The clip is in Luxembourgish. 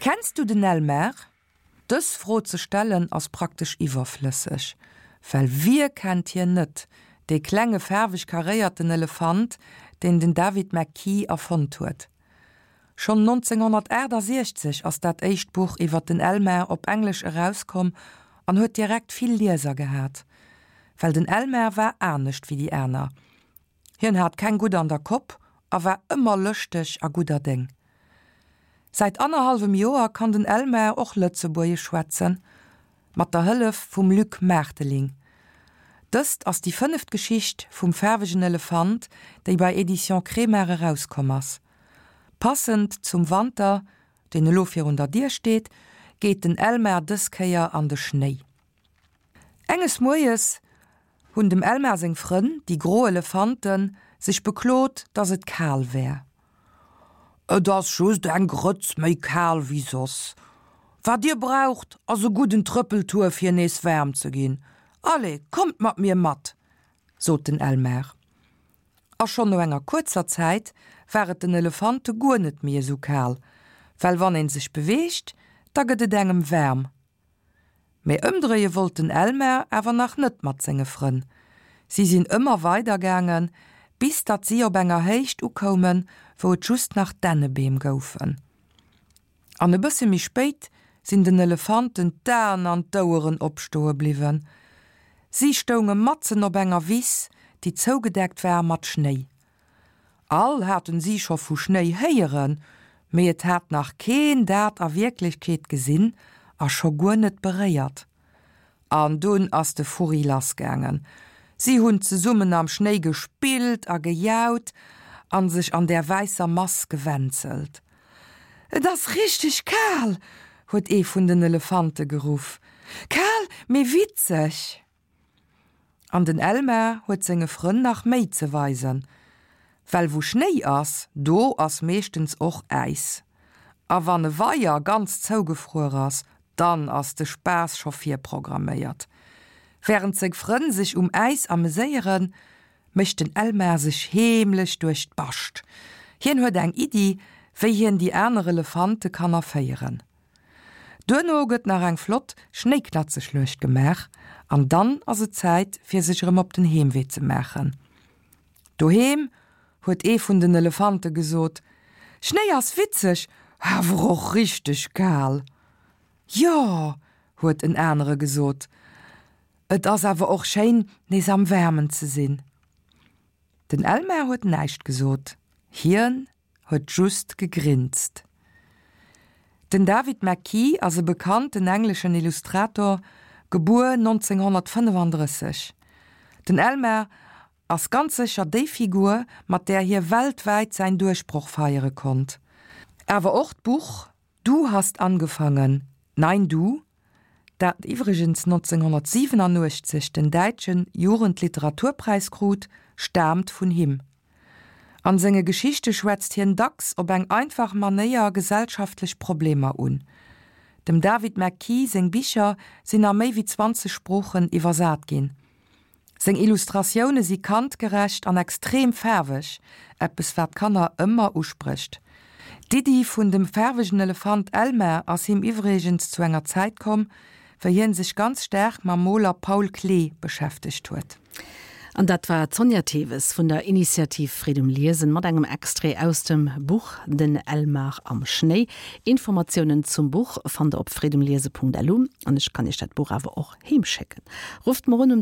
Kenns du den Elmar? Dës Fro ze stellen ass praktesch iwwerflësseg, well wie kennt hien net, dee klenge faarweg karéierten Elefant, deen den David McKee erfonnt huet. Schonn 1968 ass dat éischt Buch iwwer den Elmar op Englesch erauskomm an huet direkt vill Lieser gehat. Well den Elmar war anescht wéi déi aner. Hien hat keng gutt an der Kopp a war ëmmer lëschteg a gudder Déng. Säit annerhallwem Joer kann den Elmar och Lëtzebuergesch schwätzen, mat der Hëllef vum Luc Maarteling. Dëst ass déi fënneft Geschicht vum faarwegen Elefant, déi bei Editions Kremart erauskomm ass. Passend zum Wanter, deen elo virun der Dier steet, geet den Elmar dës Kéier an de Schnéi. Enges Moies hunn dem Elmar seng Frënn, déi gro Elefanten, sech beklot, dass et kal wär. Et ass just eng Grëtz méi kal wéi soss. Wat dir braucht, ass e gudden Trëppeltour fir nees waarm ze ginn. Allez, kommt mat mir mat! sot den Elmar. A schonn no enger kuerzer Zäit war et den Elefante guer net méi esou kal, well wann een sech beweegt, da gëtt et engem waarm. Mee ëmdréie wollt den Elmar awer nach net mat senge Frënn. Si sinn ëmmer weider gaangen, bis datt si op enger Héicht ukoumen, wou et just nach Dännebeem goufen. An e bësse méi spéit sinn den Elefanten d'Aen an d'Oueren opstoe bliwwen. Si stounge matzen op enger Wiss, déi zougedeckt war mat Schnéi. All haten si scho vu Schnéi héieren, mee et hat nach keen dat a Wierklechkeet gesinn a scho guer net beréiert. An dunn ass de Furri lassgaangen. Si hunn zesummen am Schnéi gespillt a gejaut an sech an där wäisser Mass gewänzelt. Et ass richteg kal! huet ee vun den Elefante geruff. Kal, mee witzeg! An den Elmar huet senge Frënn nach méi ze weisen, well wou Schnéi ass, do ass meeschtens och Äis. A wann e Weier ganz zougefruer ass, dann ass de Spaass scho virprogramméiert. Wärend seng Frënn sech um Äis ameséieren, mécht den Elmar sech heemlech duerch d'Bascht. Hien huet eng Iddi, wéi hien déi aner Elefante kann erféieren. Duerno gëtt nach eng flott Schnéiknatzeschluecht gemaach an dann ass et Zäit fir sech erëm op den Heemwee ze maachen. Doheem huet ee vun den Elefante gesot, Schnéi ass witzeg, awer och richteg kal. Jo, huet en anere gesot, et ass awer och schéin nees am Waarmen ze sinn. Den Elmar huet näischt gesot, hien huet just gegrinst. Den David McKee ass e bekannten engleschen Illustrator, gebuer 1935. Den Elmar ass ganz sécher déi Figur, mat där hie weltwäit säin Duerchbroch feiere konnt. Awer och d'Buch Du hast angefangen, nein du, dat iwwregens 1987 den däitsche Jugendliteraturpräis krut, staamt vun him. An senge Geschichte schwätzt hien dacks op eng einfach Manéier gesellschaftlech Problemer un. Dem David McKee seng Bicher sinn a méi wéi 20 Sproochen iwwersat ginn. Seng Illustratioune si kandgerecht an extrem faarweg, eppes wat Kanner ëmmer usprécht. D'Iddi vun dem faarwegen Elefant Elmar ass him iwwregens zu enger Zäit komm, wéi hien sech ganz staark mam Moler Paul Klee beschäftegt huet. An dat war d'Sonja Theves vun der Initiativ Freed um Liesen mat engem Extrait aus dem Buch Den Elmar am Schnéi. Informatiounen zum Buch fannt der op freedumliese.lu an ech kann iech dat Buch awer och heem schécken. Rufft mer un um.